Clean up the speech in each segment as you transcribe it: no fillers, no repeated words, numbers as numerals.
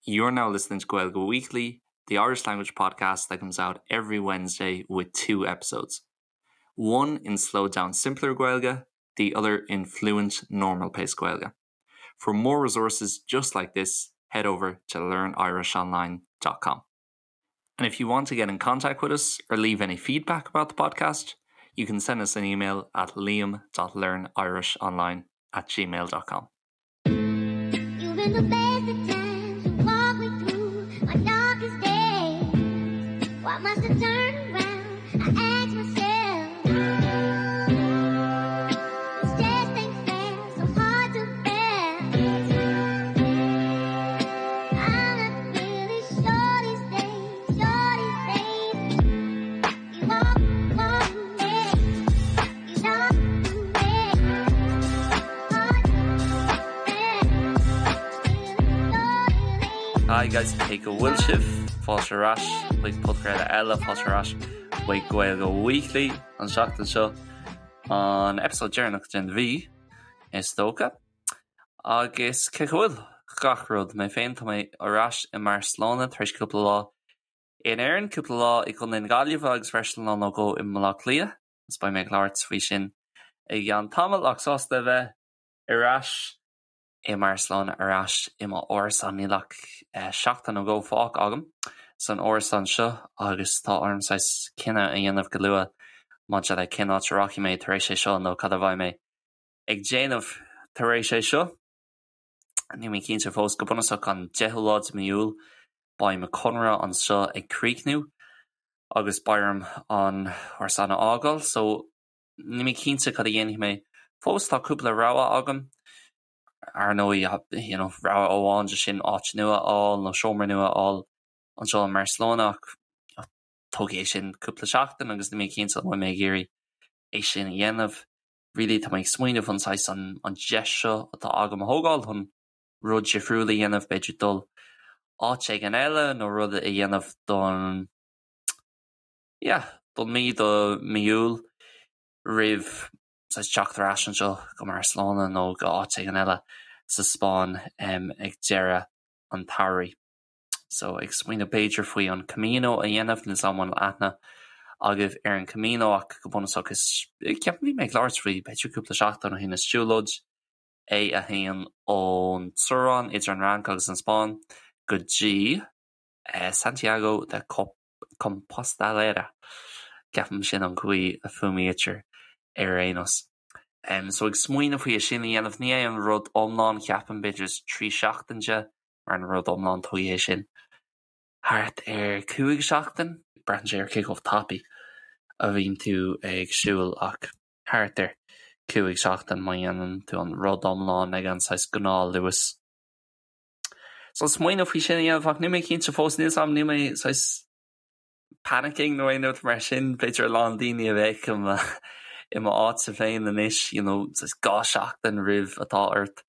You're now listening to Gaeilge Weekly, the Irish language podcast that comes out every Wednesday with two episodes. One in slowed down simpler Gaeilge, the other in fluent normal pace Gaeilge. For more resources just like this, head over to learnirishonline.com. And if you want to get in contact with us or leave any feedback about the podcast, you can send us an email at liam.learnirishonline at gmail.com. You've been the best of times. You walk me through my darkest days. Why must I turn around? I ask myself. This just ain't fair, so hard to bear. I'm not really sure these days, sure these days. You walk, walk me, you talk to me. Hard to bear. Hi guys, cé go bhfuil sibh? Fáilte ar ais chuig podchraoladh eile, fáilte ar ais chuig Gaeilge Weekly an seachtain seo, an episode deireanach den mhí, is dócha. Agus cé go bhfuil gach rud, mé féin, tá mé ar ais i mBarcelona tar éis cúpla lá in Éirinn, cúpla lá i gContae na Gaillimhe agus freisin lá nó dhó i mBaile Átha Cliath, agus beidh mé ag labhairt faoi sin i gceann tamaill, ach sásta a bheith ar ais i mBarcelona, ar ais i m'árasán. Níl ach seachtain nó dhó fágtha agam san árasán seo agus tá orm saghas cinneadh a dhéanamh go luath maidir le cén áit a rachaidh mé tar éis é seo nó cad a bheidh mé ag déanamh tar éis é seo. Níl mé cinnte fós. Go bunúsach an 10ú lá de mí Iúil beidh mo chonradh anseo ag críochnú agus beidh orm an árasán a fhágáil so níl mé cinnte cad a dhéanfaidh mé fós. Tá cúpla rogha agam. Ar ndóigh, you know, rogha amháin de sin áit nua a fháil nó seomra nua a fháil anseo i mBarcelona ach tógfaidh é sin cúpla seachtain agus níl mé cinnte an bhfuil mé ag iarraidh é sin a dhéanamh. Really tá mé ag smaoineamh an saghas an an deis seo atá agam a thógáil chun rud difriúil a dhéanamh, b'fhéidir dul áit éigin eile nó rud a dhéanamh don yeah, don mí do mí Iúil roimh saghas teacht ar ais anseo go mBarcelona nó go áit éigin eile sa Spáinn ag deireadh an tsamhraidh. So ag smaoineamh b'fhéidir faoi an Camino a dhéanamh, níl 's a'm an bhfuil aithne agaibh ar an Camino ach go bunúsach is, ceapaim bhí mé ag labhairt faoi b'fhéidir cúpla seachtain ó shin, is siúlóid é a théann ón teorainn idir an Fhrainc agus an Spáinn go dtí Santiago de Compostalera, ceapaim sin an chaoi a fuaimnítear ar aon nós. So ag smaoineamh faoi é sin a dhéanamh, ní é an rud iomlán, ceapaim, b'fhéidir is 3 seachtain de, mar an rud iomlán tógfaidh é sin thart ar 5 seachtain. Braitheann sé ar cé chomh tapaidh a bhíonn tú ag siúl ach thart ar 5 seachtain má dhéanann tú an rud iomlán ag an saghas gnáthluas. So smaoineamh faoi sin a dhéanamh ach níl mé cinnte fós, níl 's a'm, níl mé saghas panicking nó aon rud mar sin, b'fhéidir a lán daoine a bheadh i mo i mo áitse féin anois, you know, saghas 2 seachtain roimh atá ort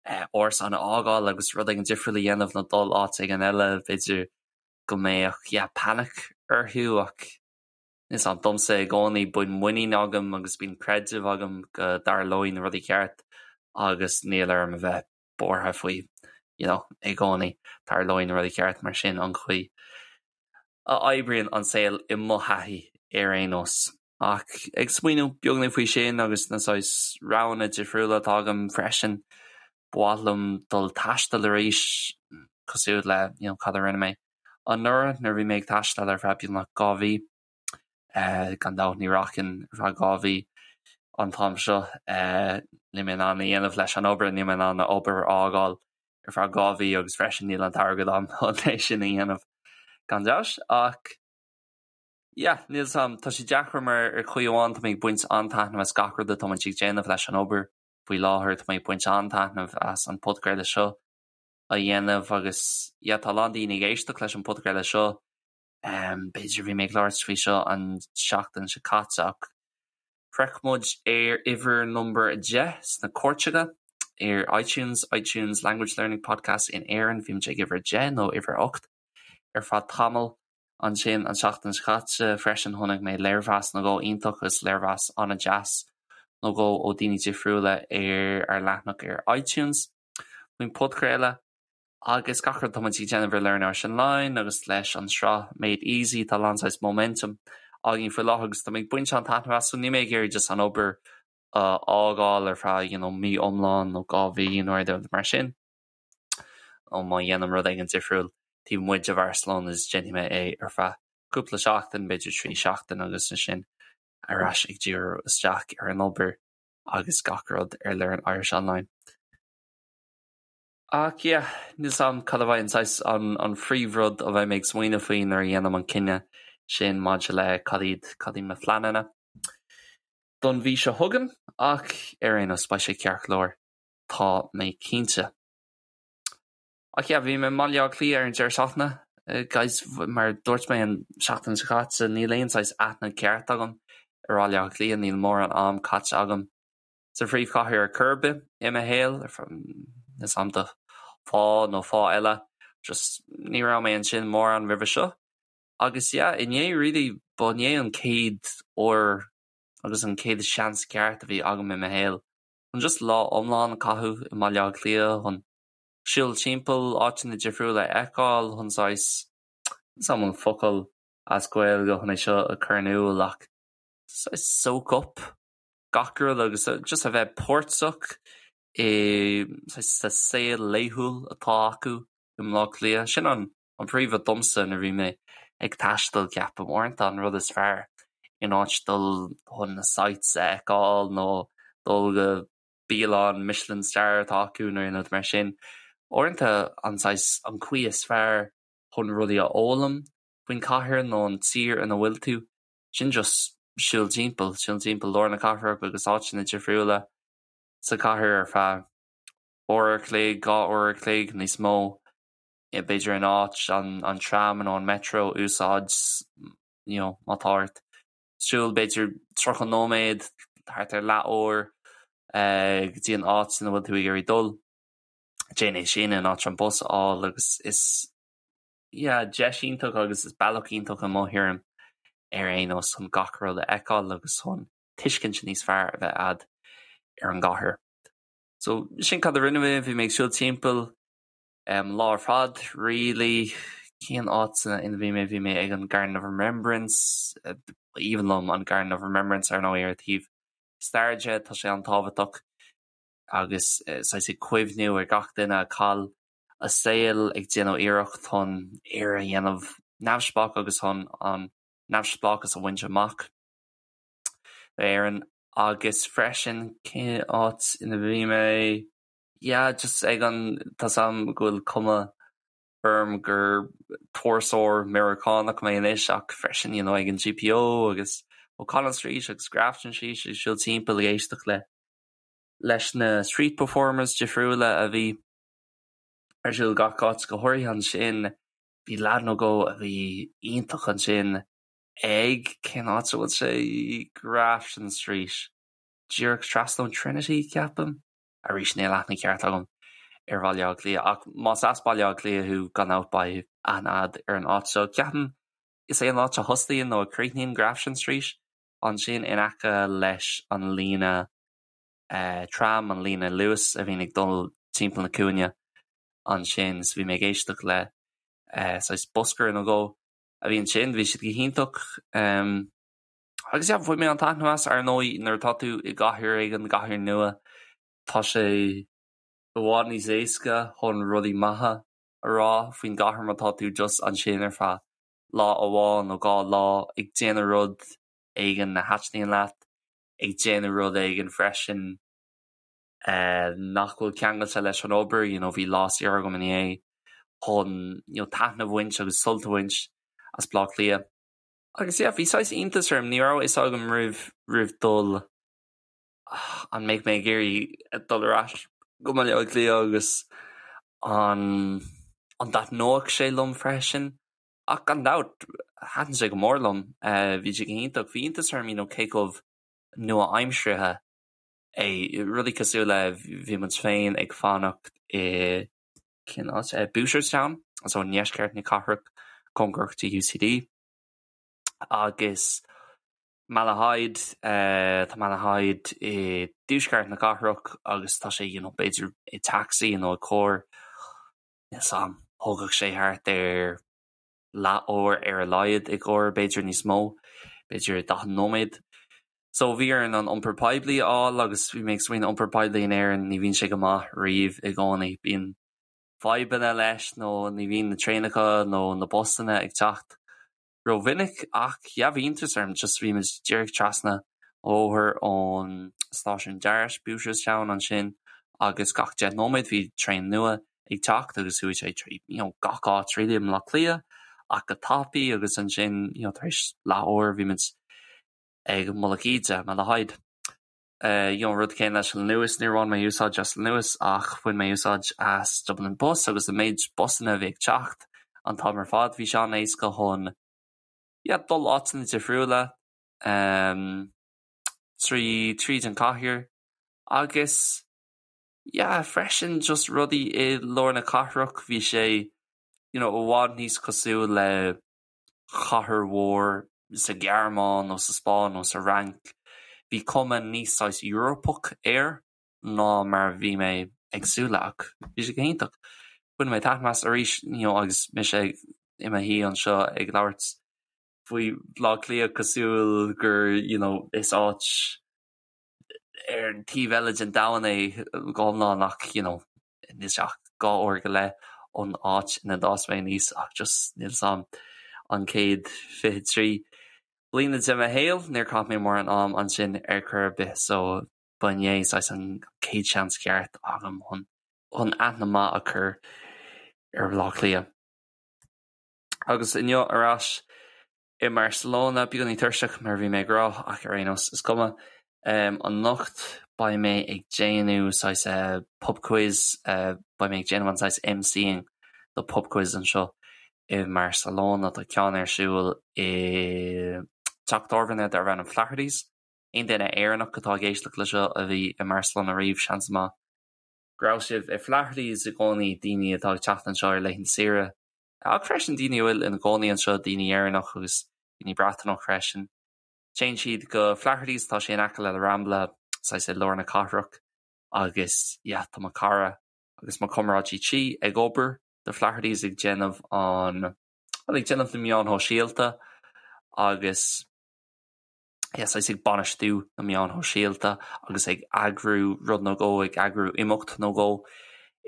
árasán a fhágáil agus rud éigin difriúil a dhéanamh nó dul áit éigin eile, b'fhéidir go mbeadh yeah panic orthu ach níl 's a'm, domsa i gcónaí bíonn muinín agam agus bíonn creideamh agam go dtarlóidh na rudaí ceart agus níl orm a bheith buartha faoi you know i gcónaí tarlóidh na rudaí ceart mar sin an chaoi a oibríonn an saol i mo thaithí ar aon nós. Ach ag smaoineamh beagáinín faoi sin agus na saghas roghanna difriúla atá agam freisin, ba mhaith liom dul taisteal arís cosúil le you know cad a rinne mé anuraidh nuair a bhí mé ag taisteal ar feadh beagnach 2 mhí. Gan dabht ní rachainn ar feadh 2 mhí an t-am seo. Níl mé in ann a dhéanamh leis an obair, níl mé in ann an obair a fhágáil ar feadh 2 mhí agus freisin níl an t-airgead agam chun é sin a dhéanamh gan dabht. Ach yeah, níl 's a'm, tá sé deacair mar ar chaoi amháin tá mé ag baint an-taitneamh as gach rud atá muid ag déanamh leis an obair faoi láthair, tá mé ag baint an-taitneamh as an podchraoladh seo a dhéanamh agus yeah, tá a lán daoine ag éisteacht leis an podchraoladh seo. B'fhéidir bhí mé ag labhairt faoi seo an seachtain seo caite ach shroich muid ar uimhir number 10 sna cairteacha ar iTunes, iTunes Language Learning Podcast in Éirinn, bhí muid ag uimhir 10 nó uimhir 8 ar feadh tamaill. Ansin an seachtain seo caite freisin chonaic mé léirmheas nó dhó iontach agus léirmheas an-deas nó dhó ó daoine difriúla ar ár leathanach ar iTunes faoin podchraoladh. Agus gach rud atá muid ag déanamh ar Learn Irish Online agus leis an sraith Made Easy, tá a lán saghas momentum againn faoi láthair agus tá mé ag baint an-taitneamh as, so níl mé ag iarraidh just an obair a fhágáil ar feadh you know mí iomlán nó 2 mhí nó rud mar sin. Nó má dhéanaim rud éigin difriúil taobh amuigh de Bharcelona is déanfaidh mé é ar feadh cúpla seachtain, b'fhéidir 3 seachtain agus ansin ar ais ag díriú isteach ar an obair agus gach rud ar Learn Irish Online. Ach yeah, níl 's a'm cad a bheidh an saghas, an, an phríomhrud a bheidh mé ag smaoineamh faoi nuair a dhéanaim an cinneadh sin maidir le cad iad, cad iad mo phleananna don mhí seo chugainn ach ar aon nós beidh sé ceart go leor, tá mé cinnte. Ach yeah, bhí mé i mBaile Átha Cliath ar an deireadh seachtaine, guys, mar a dúirt mé an seachtain seo caite, níl aon saghas aithne ceart agam ar Bhaile Átha Cliath, níl mórán am caite agam sa phríomhchathair ar chor ar bith i mo shaol, níl 's a'm do fáth nó fáth eile, just ní raibh mé ansin mórán roimhe seo. Agus yeah, inné really, ba inné an chéad uair agus an chéad seans ceart a bhí agam i mo shaol chun just lá iomlán a chaitheamh i mBaile Átha Cliath, chun siúl timpeall, áiteanna difriúla a fheiceáil, chun saghas, níl 's a'm an focal as Gaeilge chun é seo a chur in iúl ach saghas soak up gach rud agus just a bheith páirteach i sa saol laethúil atá acu i mBleá Cliath. Sin an an príomhrud domsa nuair a bhí mé ag taisteal, ceapaim. Uaireanta an rud is fearr in áit dul chun na sights a fheiceáil nó dul go bialann Michelin star atá acu nó aon rud mar sin, uaireanta an saghas, an chaoi is fearr chun rudaí a fhoghlaim faoin chathair nó an tír ina bhfuil tú, sin just siúl timpeall, siúl timpeall lár na cathrach agus áiteanna difriúla sa chathair ar feadh uair a chloig, 2 uair a chloig, níos mó, b'fhéidir in áit an tram nó an metro a úsáid, you know, má tá ort siúl b'fhéidir 30 nóiméad, thart ar leath uair go dtí an áit ina bhfuil tú ag iarraidh dul, déan é sin in áit an bus a fháil agus is yeah, deis iontach agus is bealach iontach i mo thuairim ar aon nós chun gach rud a fheiceáil agus chun tuiscint níos fearr a bheith a'd ar an gcathair. So sin cad a rinne mé, bhí mé ag siúl timpeall um, lá ar fad really. Cén áit ina bhí mé? Bhí mé ag an Garden of Remembrance, aoibhinn liom an Garden of Remembrance ar ndóigh ar thaobh stair de, tá sé an-tábhachtach agus saghas ag cuimhniú ar gach duine a chaill a saol ag déanamh iarracht chun Éire a dhéanamh neamhspleách agus chun an neamhspleáchas a bhaint amach d'Éirinn. Agus freisin, cén áit ina bhí mé? Yeah, just ag an, tá 's a'm go bhfuil cuma orm gur turasóir Meiriceánach mé anois ach freisin, you know, ag an GPO agus O'Connell Street agus Grafton Street ag siúl timpeall ag éisteacht le leis na street performers difriúla a bhí ar siúl gach áit, go háirithe ansin bhí leaid nó dhó a bhí iontach ansin ag, cén áit a bhfuil sé, Grafton Street, díreach trasna ón Trinity, ceapaim? Arís, níl aithne ceart agam ar Bhaile Átha Cliath, ach más as Baile Átha Cliath thú, gan dabht beidh aithne a'd ar an áit seo. Ceapaim is é an áit a thosaíonn nó a chríochnaíonn Grafton Street, ansin in aice leis an líne tram, an líne Luas a bhíonn ag dul timpeall na cúinne ansin. So bhí mé ag éisteacht le saghas busker nó dhó a bhí ansin, bhí siad go hiontach. Agus yeah, bhain mé an taitneamh as, ar ndóigh nuair atá tú i gcathair éigin, gcathair nua, tá sé i bhfad níos éasca chun rudaí maithe a rá faoin gcathair má tá tú just ansin ar feadh lá amháin nó 2 lá ag déanamh rud éigin a thaitníonn leat. ag déanamh rud éigin freisin nach bhfuil ceangailte leis an obair, you know bhí lá saor agam inné chun you know taitneamh a bhaint agus sult a bhaint as Baile Átha Cliath. Agus yeah, bhí saghas iontas orm, ní raibh a fhios agam roimh roimh dul an mbeidh mé ag iarraidh dul ar ais go Baile Átha Cliath agus an an dtaitneodh sé liom freisin. Ach gan dabht, thaitin sé go mór liom. Bhí sé go hiontach. Bhí iontas orm, you know, cé chomh nua-aimseartha é. Rudaí cosúil le, bhí muid féin ag fanacht i, cén áit? Booterstown, so i ndeisceart na cathrach, cóngarach do UCD. Agus Malahide, tá Malahide i dtuaisceart na cathrach agus tá sé, you know, b'fhéidir i taxi nó i carr. Níl 's a'm, thógfadh sé thart ar leath uair ar a laghad i gcarr, b'fhéidir níos mó, b'fhéidir 40 nóiméad. So bhí orainn an iompar poiblí a fháil agus bhí mé ag smaoineamh iompar poiblí in Éirinn, ní bhíonn sé go maith riamh i gcónaí, bíonn fadhbanna leis nó ní bhíonn na traenacha nó na busanna ag teacht rómhinic ach yeah bhí iontas orm just bhí muid díreach trasna an bhóthair ón stáisiún DART, Booterstown ansin agus gach 10 nóiméad bhí traein nua ag teacht agus chuaigh sé trí you know gach áit really i mBleá Cliath ach go tapaidh agus ansin you know tar éis leath uair bhí muid ag Mullach Íde, Malahide. You know rud céanna leis an Luas, níor bhain mé úsáid as an Luas ach bhain mé úsáid as Dublin Bus agus an méid busanna a bhí ag teacht an t-am ar fad bhí sé an-éasca chun yeah dul áiteanna difriúla um, trí tríd an cathair agus yeah freisin just rudaí i lár na cathrach bhí sé you know i bhfad níos cosúil le chathair mhór sa Ghearmáin nó sa Spáinn nó sa Fhrainc. Bhí cuma níos saghas Eorpach air ná mar a bhí mé ag súil le ach bhí sé go hiontach. Bhain mé taitneamh as arís you know agus mise i mo shuí anseo ag labhairt faoi Bhaile Átha Cliath cosúil gur you know is áit ar an taobh eile den domhan é go hiomlán ach you know níl sé ach 2 uair go leith ón áit ina d'fhás mé aníos ach just níl 's a'm an chéad 23 bliana de mo shaol níor chaith mé mórán am ansin ar chor ar bith so ba inné saghas an chéad seans ceart agam chun chun aithne maith a chur ar Bhaile Átha Cliath. Agus inniu ar ais i mBarcelona, beagáinín tuirseach mar a bhí mé ag rá ach ar aon nós is cuma. Anocht beidh mé ag déanamh saghas pub quiz, beidh mé ag déanamh an saghas MCing do pub quiz anseo i mBarcelona. Tá ceann ar siúl i dteach tábhairne darb ainm Flaherty's. Aon duine Éireannach atá ag éisteacht le seo a bhí i mBarcelona riamh, seans maith go raibh sibh i Flaherty's i gcónaí, daoine atá ag teacht anseo ar laethanta saoire. Ach freisin daoine a bhfuil ina gcónaí anseo, daoine Éireannach agus daoine Breataineach freisin. Téann siad go Flaherty's, tá sé in aice le La Rambla, saghas i lár na cathrach agus yeah tá mo chara agus mo chomrádaí tí ag obair do Flaherty's ag déanamh an, bhuel ag déanamh na meáin shóisialta agus yeah saghas ag bainistiú na meáin shóisialta agus ag eagrú rud nó dhó, ag eagrú imeacht nó dhó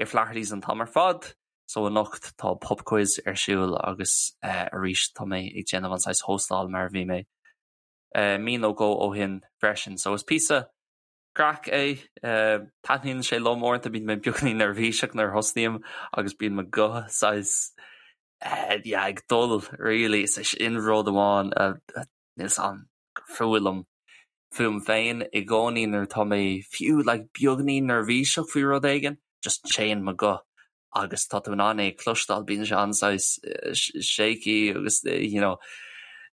i Flaherty's an t-am ar fad. So anocht tá pub quiz ar siúl agus arís tá mé ag déanamh an saghas hóstáil mar a bhí mé mí nó dhó ó shin freisin. So is píosa craic é. Taitníonn sé liom uaireanta, bíonn mé beagáinín neirbhíseach nuair a thosnaím agus bíonn mo ghuth saghas yeah ag dul really. Is é sin rud amháin a Níl 's a'm gur fuath liom fúm féin i gcónaí nuair atá mé fiú like beagainín neirbhíseach faoi rud éigin, just téann mo ghuth agus tá tú in ann é a chloisteáil, bíonn sé an-saghas shaky agus you know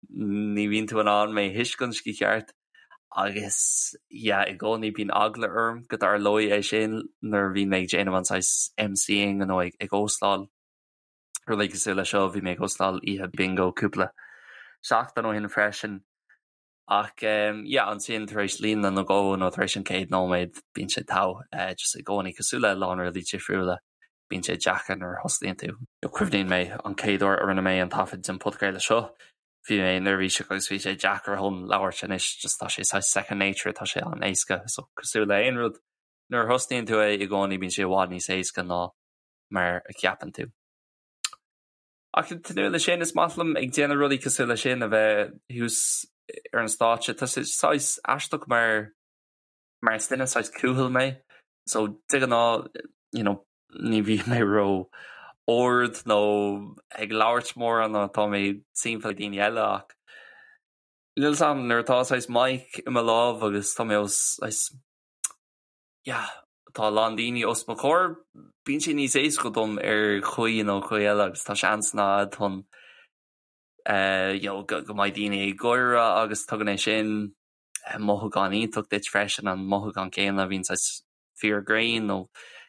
ní bhíonn tú in ann mé a thuiscint go ceart agus yeah i gcónaí bíonn eagla orm go dtarlóidh é sin nuair a bhíonn mé ag déanamh an saghas MCing nó ag ag óstáil. Rudaí cosúil le seo, bhí mé ag óstáil oíche bingo cúpla seachtain ó shin freisin. Ach yeah, ansin tar éis líne nó dhó nó tar éis an chéad nóiméad bíonn sé togha, just i gcónaí cosúil le a lán rudaí difriúla, bíonn sé deacair nuair a thosnaíonn tú. Cuimhníonn mé an chéad uair a rinne mé an taifead den podchraoladh seo, bhí mé neirbhíseach agus bhí sé deacair chun labhairt anois just tá sé saghas second nature, tá sé an-éasca so cosúil le aon rud nuair a thosnaíonn tú é i gcónaí bíonn sé i bhfad níos éasca ná mar a cheapann tú. Ach ag tnúth leis sin, is maith liom ag déanamh rudaí cosúil leis sin, a bheith thuas ar an stáitse. Tá sé saghas aisteach mar mar is duine saghas cúthail mé, so de ghnáth you know ní bhíonn mé ró ard nó ag labhairt mórán nuair atá mé timpeall daoine eile ach níl 's a'm nuair atá saghas mic i mo lámh agus tá mé os saghas yeah, tá a lán daoine os mo chomhair, bíonn sé níos éasca dom ar chaoi nó chaoi eile agus tá seansanna a'd chun eh, you know, go, go mbeidh daoine ag gáire agus tugann é sin eh, mothúchán iontach duit freisin, an mothúchán céanna a bhíonn saghas fir grinn nó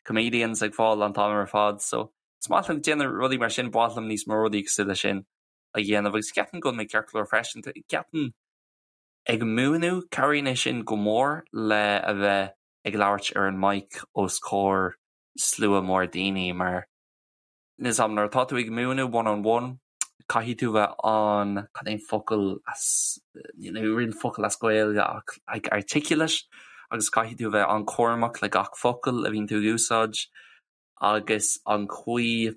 comedians ag fáil an t-am ar fad. So is maith liom déanamh rudaí mar sin, ba mhaith liom níos mó rudaí cosúil leis sin a dhéanamh agus ceapaim go bhfuil mé ceart go leor freisin. Ceapaim Ag múineadh, cabhraíonn é sin go mór le a bheith ag labhairt ar an mic os comhair slua mór daoine mar. Níl a fhios agam, nuair atá tú ag múineadh one on one, caithfidh tú bheith an, cad é an focal as, níl aon focal as Gaeilge ach like articulate agus caithfidh tú bheith an-chúramach le gach focal a bhíonn tú ag úsáid agus an chaoi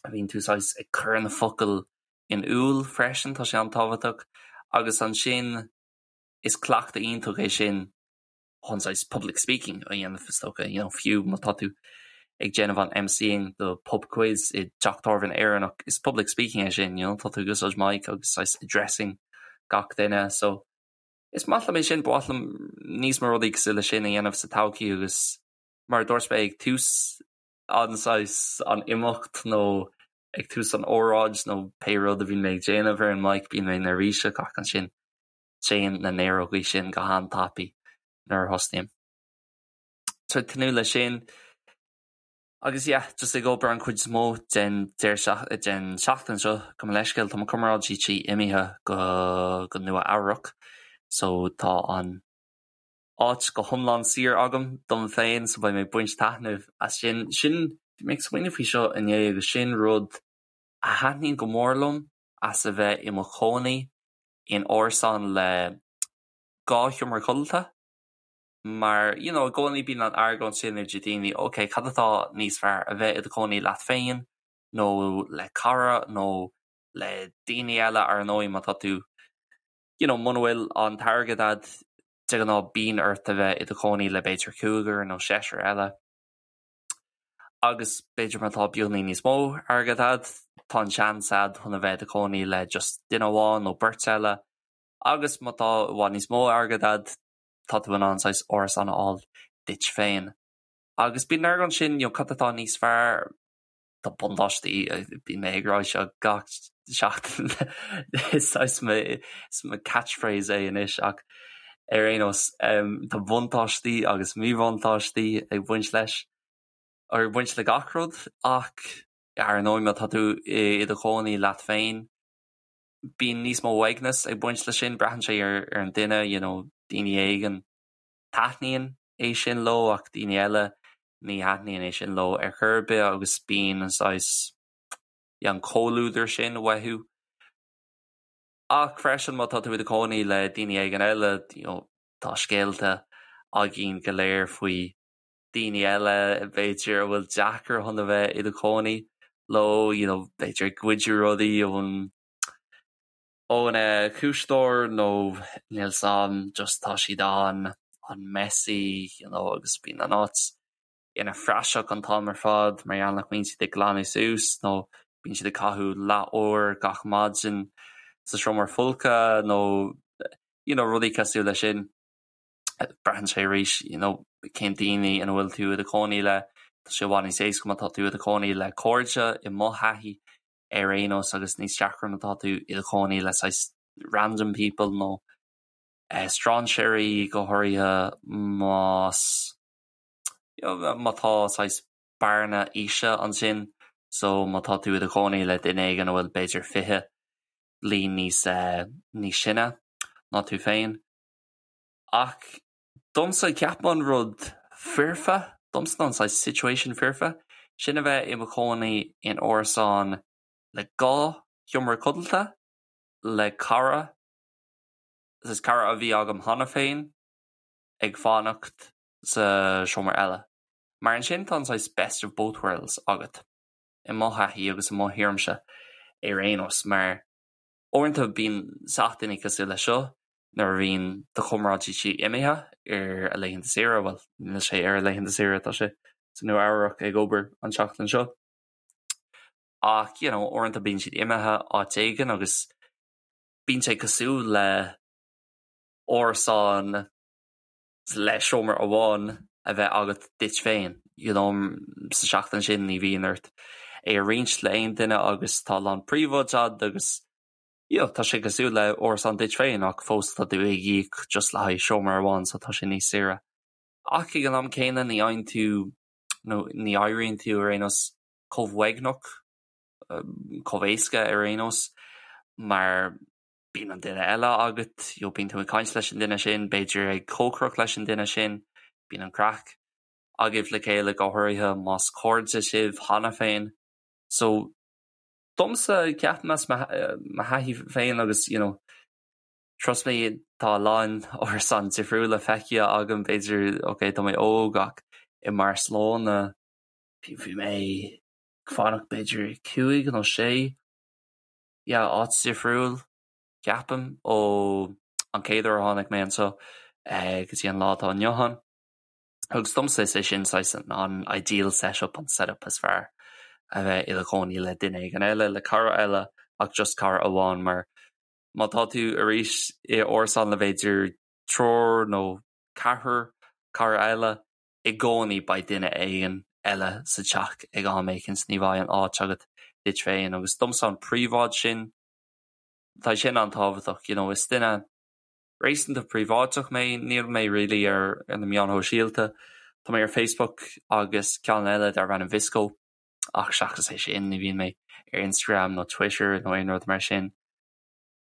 a bhíonn tú saghas ag cur na focail in iúl freisin, tá sé an-tábhachtach agus ansin is cleachtadh iontach é sin chun saghas public speaking a dhéanamh is dócha, you know, fiú má tá tú ag déanamh an MCing do pub quiz i dteach tábhairne Éireannach, is public speaking é sin, you know, tá tú ag úsáid mic agus saghas addressing gach duine, so is maith liom é sin, ba mhaith liom níos mó rudaí cosúil leis sin a dhéanamh sa todhchaí agus mar a dúirt mé ag tús an saghas an imeacht nó ag tús an óráid nó pé rud a bhíonn mé ag déanamh ar an mic bíonn mé neirbhíseach ach ansin téann na néarógaí sin go han-tapaidh nuair a thosnaím. So ag tnúth leis sin. Agus yeah, just ag obair an chuid is mó den den seachtain seo, gabh mo leithscéal, tá mo chomrádaí tí imithe go go Nua Eabhrac so tá an áit go hiomlán saor agam dom féin so beidh mé ag baint taitneamh as sin. Sin, bhí mé ag smaoineamh faoi seo inné agus sin rud a thaitníonn go mór liom as a bheith i mo chónaí in árasán le 2 sheomra codlata mar you know i gcónaí bíonn an argóint sin idir daoine ok cad atá níos fearr a bheith i do chónaí leat féin nó le cara nó le daoine eile ar ndóigh má tá tú you know muna bhfuil an t-airgead a'd de ghnáth bíonn ort a bheith i do chónaí le b'fhéidir cúigear nó seisear eile. Agus b'fhéidir má tá beagáinín níos mó airgead a'd, tá an seans a'd chun a bheith i do chónaí le just duine amháin nó beirt eile. Agus má tá i bhfad níos mó airgead a'd, tá tú in ann saghas árasán a fháil duit féin. Agus bíonn an argóint sin, you know, cad atá níos fearr? Tá buntáistí, bíonn mé ag rá seo gach seachtain, is saghas mo, is mo catchphrase é anois ach ar aon nós, tá buntáistí agus míbhuntáistí ag baint leis, ag baint le gach rud ach ar ndóigh má tá tú i do chónaí leat féin, bíonn níos mó uaigneas ag baint leis sin, braitheann sé ar an duine, you know, daoine éigin taitníonn é sin leo ach daoine eile ní thaitníonn é sin leo ar chor ar bith agus bíonn an saghas an comhluadar sin uathu. Ach freisin má tá tú i do chónaí le daoine éigin eile, you know, tá scéalta againn go léir faoi daoine eile b'fhéidir a bhfuil deacair chun a bheith i do chónaí leo, you know, b'fhéidir ag goid rudaí ón ón ciúiseoir nó níl 's a'm just tá siad an an messy you know agus bíonn an áit ina phraiseach an t-am ar fad mar gheall nach mbíonn siad ag glanadh suas nó bíonn siad ag caitheamh leath uair gach maidin sa seomra folctha nó you know rudaí cosúil leis sin. Braitheann sé arís you know cén daoine ina bhfuil tú i do chónaí le, tá sé i bhfad níos éasca má tá tú i do chónaí le cairde i mo thaithí ar aon nós agus níos deacra má tá tú i do chónaí le saghas random people nó strainséirí go háirithe más má tá saghas bearna aoise ansin so má tá tú i do chónaí le duine éigin a bhfuil b'fhéidir 20 bliain níos níos sine ná tú féin. Ach domsa ceapaim an rud foirfe, domsa an saghas situation foirfe, sin a bheith i mo chónaí in árasán le 2 sheomra codlata le cara, saghas cara a bhí agam cheana féin ag fanacht sa seomra eile. Mar ansin tá an saghas best of both worlds agat, i mo thaithí agus i mo thuairimse ar aon nós, mar uaireanta bíonn seachtainí cosúil leis seo, nuair a bhíonn do chomrádaí tí imithe ar a laethanta saoire, bhuel, níl sé ar a laethanta saoire, tá sé sa Nua Eabhrac ag obair an tseachtain seo. Ach, you know, uaireanta bíonn siad imithe áit éigin agus bíonn sé cosúil le árasán le seomra amháin a bheith agat duit féin, you know, sa seachtain sin ní bhíonn ort é a roinnt le aon duine agus tá a lán príobháid agat agus you know, tá sé cosúil le árasán duit féin ach fós tá tú ag íoc just le haghaidh seomra amháin so tá sé níos saoire. Ach ag an am céanna ní fhaigheann tú nó ní éiríonn tú ar aon nós chomh uaigneach, chomh éasca ar aon nós mar bíonn an duine eile agat, you know, bíonn tú ag caint leis an duine sin, b'fhéidir ag cócaireacht leis an duine sin, bíonn an craic agaibh le chéile go háirithe más cairde sibh cheana féin. So domsa ceapaim as mo thaithí féin agus you know trust me tá a lán árasán difriúla feicthe agam b'fhéidir ok tá mé óg ach i mBarcelona bhí mé ag fanacht b'fhéidir 5 nó 6 yeah áit difriúil ceapaim ó an chéad uair a tháinig mé anseo go dtí an lá atá inniu ann. Agus domsa is é sin saghas an ideal setup, an setup is fearr, a bheith i do chónaí le duine éigin eile, le cara eile ach just cara amháin mar má tá tú arís i árasán le b'fhéidir triúr nó ceathrar cara eile, i gcónaí beidh duine éigin eile sa teach ag am éicint, ní bheidh an áit agat duit féin agus domsa an príobháid sin, tá sin an-tábhachtach, you know, is duine réasúnta príobháideach mé, níl mé really ar na meáin shóisialta, tá mé ar Facebook agus ceann eile darb ainm VSCO ach seachas é sin ní bhíonn mé ar Instagram nó Twitter nó aon rud mar sin.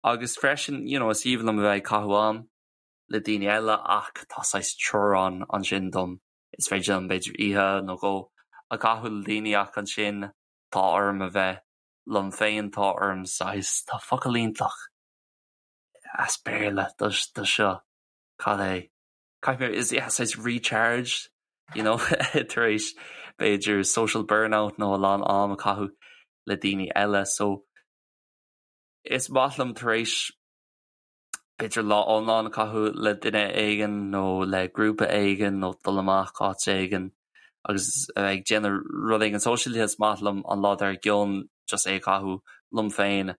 Agus freisin, you know, is aoibhinn liom a bheith ag caitheamh am le daoine eile ach tá saghas teorainn ansin dom, is féidir liom b'fhéidir oíche nó dhó a chaitheamh le daoine ach ansin tá orm a bheith liom féin, tá orm saghas, tá focal iontach as Béarla do seo, cad é? Caithfidh mé, is yeah, saghas recharge, you know, tar éis b'fhéidir social burnout nó a lán am a chaitheamh le daoine eile so is maith liom tar éis b'fhéidir lá iomlán a chaitheamh le duine éigin nó le grúpa éigin nó dul amach áit éigin agus a bheith ag déanamh rud éigin sóisialta, is maith liom an lá dár gcionn just é a chaitheamh liom féin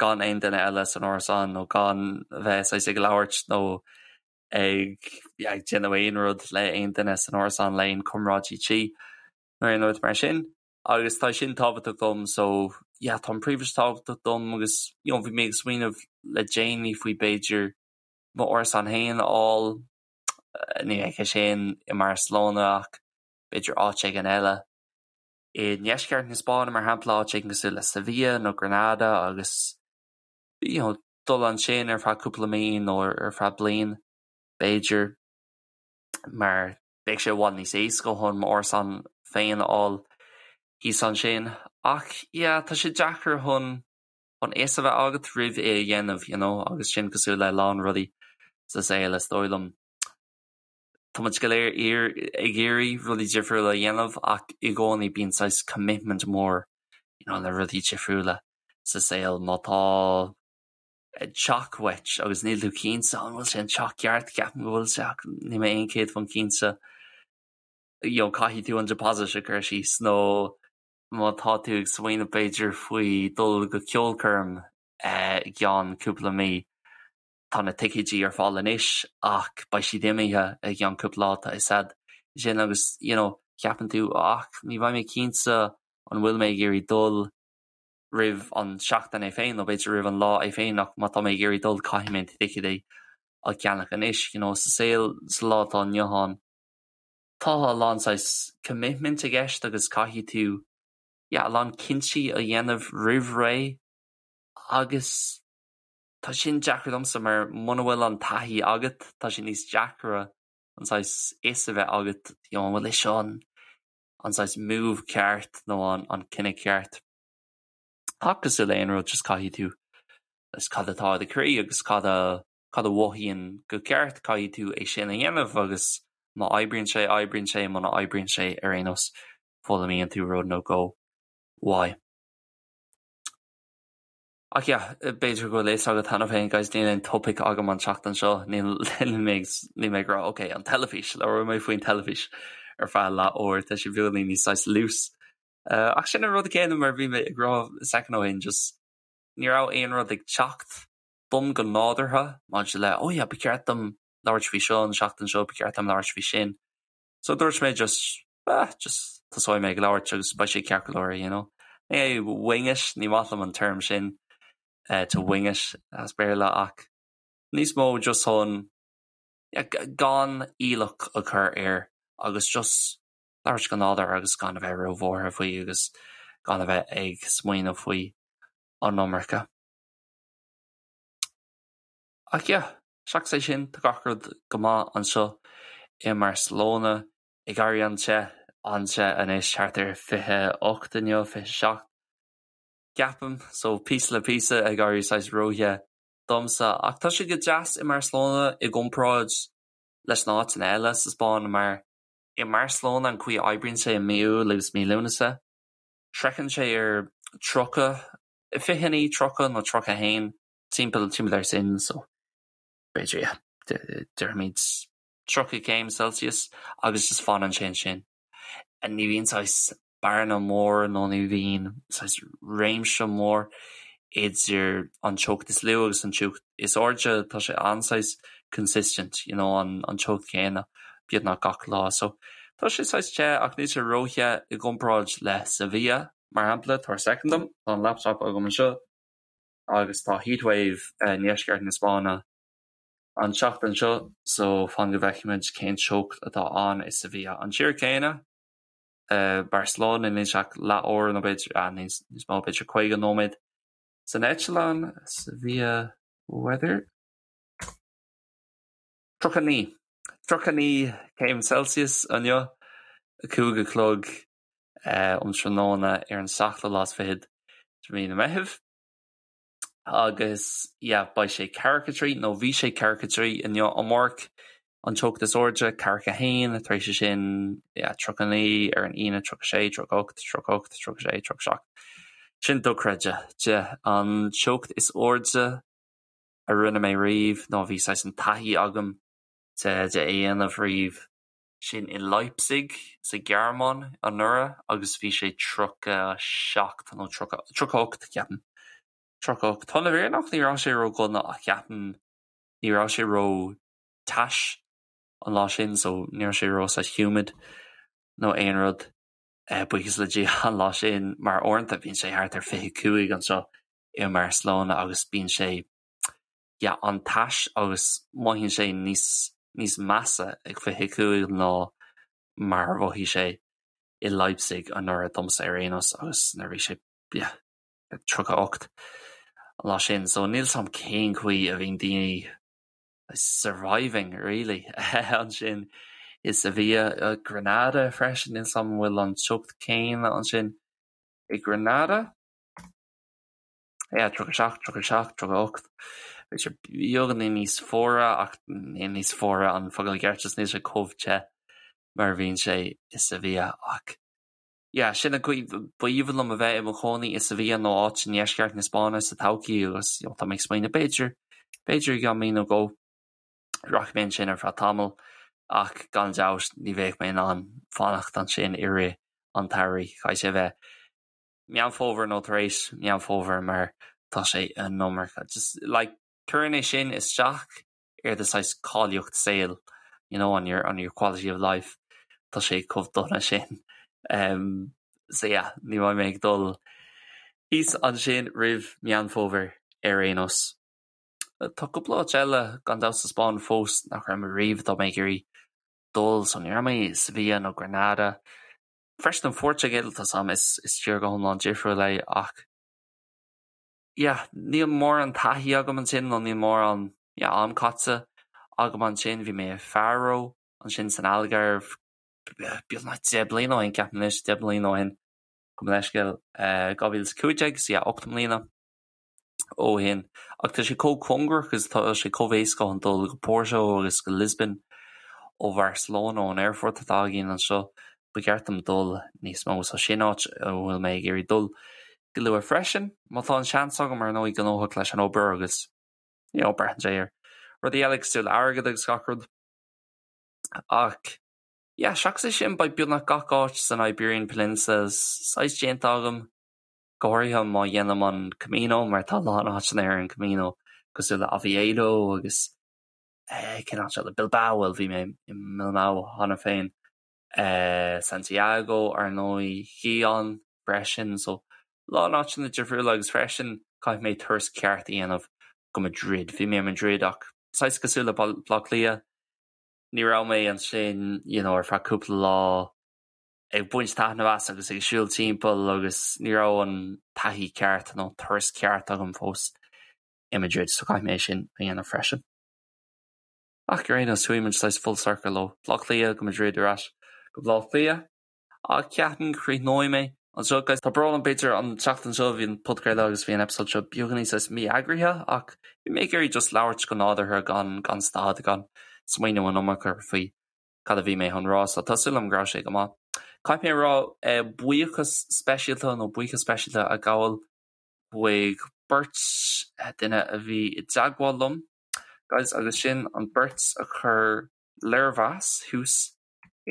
gan aon duine eile san árasán nó gan a bheith saghas ag labhairt nó ag ag déanamh aon rud le aon duine san árasán le aon comráidí tí nó aon rud mar sin. Agus tá sin tábhachtach dom so yeah tá an príobháid tábhachtach dom agus you know bhí mé ag smaoineamh le déanaí faoi b'fhéidir m'árasán féin a fháil, ní bheidh sé sin i mBarcelona ach b'fhéidir áit éigin eile i ndeisceart na Spáinne mar shampla, áit éigin cosúil le Sevilla nó Granada agus you know dul ansin ar feadh cúpla mí nó ar feadh bliain b'fhéidir mar Bheadh sé i bhfad níos éasca chun m'árasán féin a fháil thíos ansin. Ach yeah, tá sé deacair chun an fhios a bheith agat roimh é a dhéanamh, you know, agus sin cosúil le a lán rudaí sa saol, is dóigh liom. Tá muid go léir ag iarraidh rudaí difriúla a dhéanamh ach i gcónaí bíonn saghas commitment mór, you know, le rudaí difriúla sa saol. Má tá teach uait agus níl tú cinnte an bhfuil sé an teach ceart, ceapaim go bhfuil sé ach níl mé 100% cinnte, you know caithfidh tú an deposit a chur síos nó má tá tú ag smaoineamh b'fhéidir faoi dul go ceolchoirm i gceann cúpla mí, tá na ticéidí ar fáil anois ach beidh siad imithe i gceann cúpla lá, tá fhios a'd sin agus you know ceapann tú ach ní bheidh mé cinnte an bhfuil mé ag iarraidh dul roimh an seachtain é féin nó b'fhéidir roimh an lá é féin ach má tá mé ag iarraidh dul caithfidh mé na ticéidí a cheannach anois. You know, sa saol sa lá atá inniu ann tá a lán saghas commitment i gceist agus caithfidh tú yeah, a lán cinntí a dhéanamh roimh ré agus tá sin deacair domsa mar muna bhfuil an taithí agat tá sé níos deacra an saghas fhios a bheith agat you know, an bhfuil é seo an an saghas move ceart nó an an cinneadh ceart. Ach cosúil le aon rud just caithfidh tú is cad atá i do chroí agus cad a cad a mhothaíonn go ceart caithfidh tú é sin a dhéanamh agus má oibríonn sé oibríonn sé muna oibríonn sé ar aon nós foghlaimíonn tú rud nó dhó uaidh. Ach yeah, b'fhéidir go bhfuil fhios agat cheana féin guys, níl aon topaic agam an tseachtain seo, níl mé níl mé ag rá ok, an teilifís, labhróidh mé faoin teilifís ar feadh leath uair, tá sé beagáinín níos saghas loose. Ach sin an rud céanna mar bhí mé ag rá second ó shin, just ní raibh aon rud ag teacht dom go nádúrtha maidir le oh yeah, ba cheart dom labhairt faoi seo an seachtain seo, ba cheart dom labhairt faoi sin. So dúirt mé just ah, just tosóidh mé ag labhairt agus beidh sé ceart go leor, you know. Ní hé wing it, ní maith liom an term sin, eh, to wing it as Béarla ach níos mó just chun yeah, gan iallach a chur air agus just labhairt go nádúrtha agus gan a bheith róbhuartha faoi agus gan a bheith ag smaoineamh faoi an iomarca. Ach yeah, seachas é sin, tá gach rud go maith anseo i mBarcelona. Ag éirí an-te, an-te anois, thart ar 28 inniu, 27. Ceapaim, so píosa le píosa ag éirí saghas róthe domsa. Ach tá sé go deas i mBarcelona i gcomparáid leis na áiteanna eile sa Spáinn mar i mBarcelona an chaoi a oibríonn sé i mí Iúil agus mí Lúnasa, sroicheann sé ar 30, 29, 30 nó 31, timpeall timpeall air sin, so b'fhéidir yeah, déarfaimid 30 céim Celsius agus just fanann sé ansin. Ní bhíonn saghas bearna mór nó ní bhíonn saghas réimse mór idir an teocht is lú agus an teocht is airde, tá sé an-saghas consistent, you know, an an teocht chéanna beagnach gach lá. So tá sé saghas te ach níl sé róthe i gcomparáid le Sevilla, mar shampla, tabhair soicind dom, tá an laptop agam anseo agus tá heatwave i ndeisceart na Spáinne an tseachtain seo so fan go bhfeicfimid cén teocht atá ann i Sevilla. An tír céanna, Barcelona, níl sé ach leath uair nó b'fhéidir, ah, níos mó, b'fhéidir 50 nóiméad san eitleán, Sevilla weather. 39, 39 céim Celsius inniu, 5 a chlog um tráthnóna ar an seachtú lá is fichead de mhí na Meithimh. Agus yeah, beidh sé 43, nó bhí sé 43 inniu, amárach an teocht is airde, 41, tar éis sin, yeah, 39 ar an Aoine, 36, 38, 38, 36, 37. Sin dochreidte. De an teocht is airde a rinne mé riamh, nó bhí saghas an taithí agam de de é dhéanamh riamh, sin i Leipzig sa Ghearmáin anuraidh agus bhí sé 37 nó 30, 38 ceapaim. 38. Tá na bhfírinneach ní raibh sé ró-dhona ach ceapaim ní raibh sé ró-tais an lá sin so ní raibh sé ró saghas humid nó aon rud buíochas le Dia an lá sin mar uaireanta bíonn sé thart ar 25 anseo i mBarcelona agus bíonn sé yeah, an-tais agus mothaíonn sé níos níos measa ag 25 ná mar a mhothaigh sé i Leipzig anuraidh domsa ar aon nós agus nuair a bhí sé yeah, 38 an lá sin. So níl 's a'm cén chaoi a bhíonn daoine surviving really ansin i Sevilla, Granada freisin, níl 's a'm an bhfuil an teocht céanna ansin i Granada. Yeah, 37, 37, 38. B'fhéidir beagáinín níos fuaire ach níl níos fuaire an focal ceart just níl sé chomh te mar a bhíonn sé i Sevilla ach yeah, sin an chaoi b'aoibhinn liom a bheith i mo chónaí i Sevilla nó áit i ndeisceart na Spáinne sa todhchaí agus you know, tá mé ag smaoineamh b'fhéidir, b'fhéidir i gceann mí nó dhó rachaidh mé ansin ar feadh tamaill ach gan dabht ní bheadh mé in ann fanacht ansin i rith an tsamhraidh. Caithfidh sé a bheith Meán Fómhair nó tar éis Meán Fómhair mar tá sé an iomarca. Just like cuireann é sin isteach ar do saghas cáilíocht saoil, you know, on your, on your quality of life. Tá sé chomh dona sin. Um, so yeah, ní bheidh mé ag dul thíos ansin roimh Meán Fómhair ar aon nós. Tá cúpla áit eile gan dabht sa Spáinn fós nach raibh mé riamh atá mé ag iarraidh dul, so ní raibh mé i Sevilla nó Granada. Freisin an Phortaingéil, tá 's a'm, is tír go hiomlán difriúil é ach yeah, níl mórán taithí agam ansin nó níl mórán yeah, am caite agam ansin. Bhí mé i Faro ansin san Algarve beagnach 10 bliana ó shin, ceapaim anois, 10 mbliana ó shin, gabh mo leithscéal, 2015, so yeah, 8 mbliana. ó shin. Ach tá sé chomh cóngarach agus tá sé chomh éasca chun dul go Porto agus go Lisbon ó Bharcelona, ón aerfort atá againn anseo. Ba cheart dom dul níos mó. So sin áit a bhfuil mé ag iarraidh dul go luath freisin. Má tá an seans agam, ar ndóigh, gnóthach leis an obair agus you know, braitheann sé ar rudaí eile cosúil le airgead agus gach rud. Ach yeah, seachas é sin, beidh beagnach gach áit san Iberian Peninsula saghas déanta agam. go háirithe má dhéanaim an Camino mar tá a lán áiteanna ar an Camino cosúil le Oviedo agus cén áit eile? Bilbao, bhuel bhí mé i mBilbao cheana féin, Santiago ar ndóigh, Gijón freisin, so a lán áiteanna difriúla agus freisin caithfidh mé turas ceart a dhéanamh go Madrid. Bhí mé i Madrid ach saghas cosúil le Baile Átha Cliath, ní raibh mé ansin you know ar feadh cúpla lá, ag baint taitneamh as agus ag siúl timpeall agus ní raibh an taithí ceart nó turas ceart agam fós i Madrid so caithfidh mé é sin a dhéanamh freisin. Ach ar aon nós chuaigh muid saghas full circle ó Bhaile Átha Cliath go Madrid ar ais go Baile Átha Cliath ach ceapaim go chríochnóidh mé. Anseo guys, tá brón orm b'fhéidir an tseachtain seo bhí an podchraoladh agus bhí an episode seo beagáinín saghas mí-eagraithe ach bhí mé ag iarraidh just labhairt go nádúrtha gan gan stad gan smaoineamh an iomarca faoi cad a bhí mé chun rá so tá súil agam go raibh sé go maith. Caithfidh mé a rá eh, buíochas speisialta nó buíochas speisialta a ghabháil chuig beirt eh, duine a bhí i dteagmháil liom guys agus sin an beirt a chuir léirmheas thuas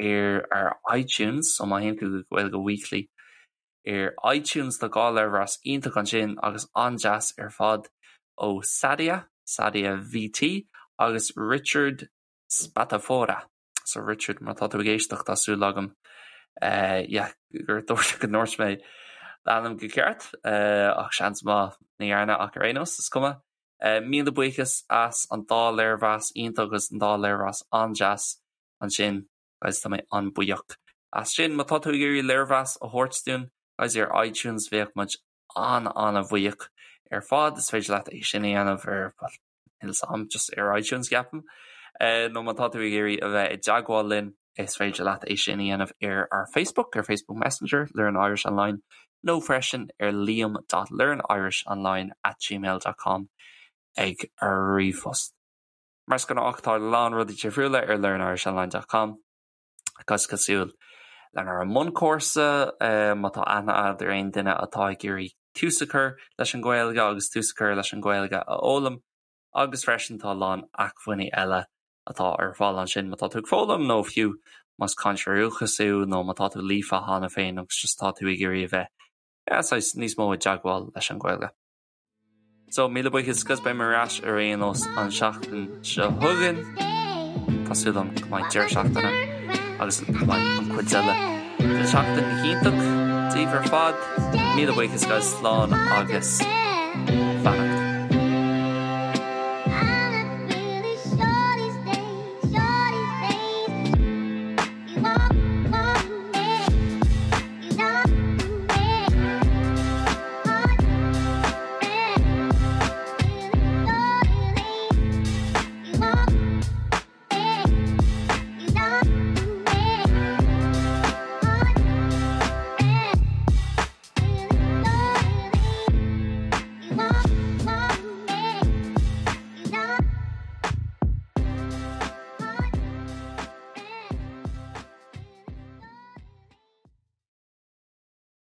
ar ar iTunes so má théann tú go Gaeilge Weekly ar iTunes tá dhá léirmheas iontach ansin agus an-deas ar fad ó Sadia, Sadia VT agus Richard Spatafora. So Richard má tá tú ag éisteacht tá súil agam eh, yeah, gur dúirt go ndúirt mé d'ainm go ceart eh, ach seans maith ní dhearna ach ar aon nós is cuma. Eh, míle buíochas as an dá léirmheas iontach agus an dá léirmheas an-deas ansin guys tá mé an-bhuíoch as sin. Má tá tú ag iarraidh léirmheas a thabhairt dúinn guys ar iTunes bheadh muid an-an-bhuíoch ar fad. Is féidir leat é sin a dhéanamh ar well, níl 'fhios a'm just ar iTunes ceapaim. Eh, nó má tá tú ag iarraidh a bheith i dteagmháil linn is féidir leat é sin a dhéanamh ar ár Facebook, ar Facebook Messenger, Learn Irish Online, nó freisin ar liam.learnirishonline at gmail dot com ag ar ríomhphost. Mar is gnách tá a lán rudaí difriúla ar learnirishonline dot com agus cosúil lenár mbunchúrsa má tá aithne agat ar aon duine atá ag iarraidh tús a chur leis an Ghaeilge agus tús a chur leis an Ghaeilge a fhoghlaim agus freisin tá a lán acmhainní eile atá ar fáil ansin má tá tú ag foghlaim nó fiú más cainteoir dúchais thú nó má tá tú líofa cheana féin agus just tá tú ag iarraidh a bheith yeah, saghas níos mó i dteagmháil leis an Ghaeilge. So, míle buíochas agus beidh mé ar ais ar aon nós an seachtain seo chugainn. Tá súil agam go mbeidh deireadh seachtaine agus go mbeidh an chuid eile den seachtain iontach daoibh ar fad. Míle buíochas guys, slán agus beannacht.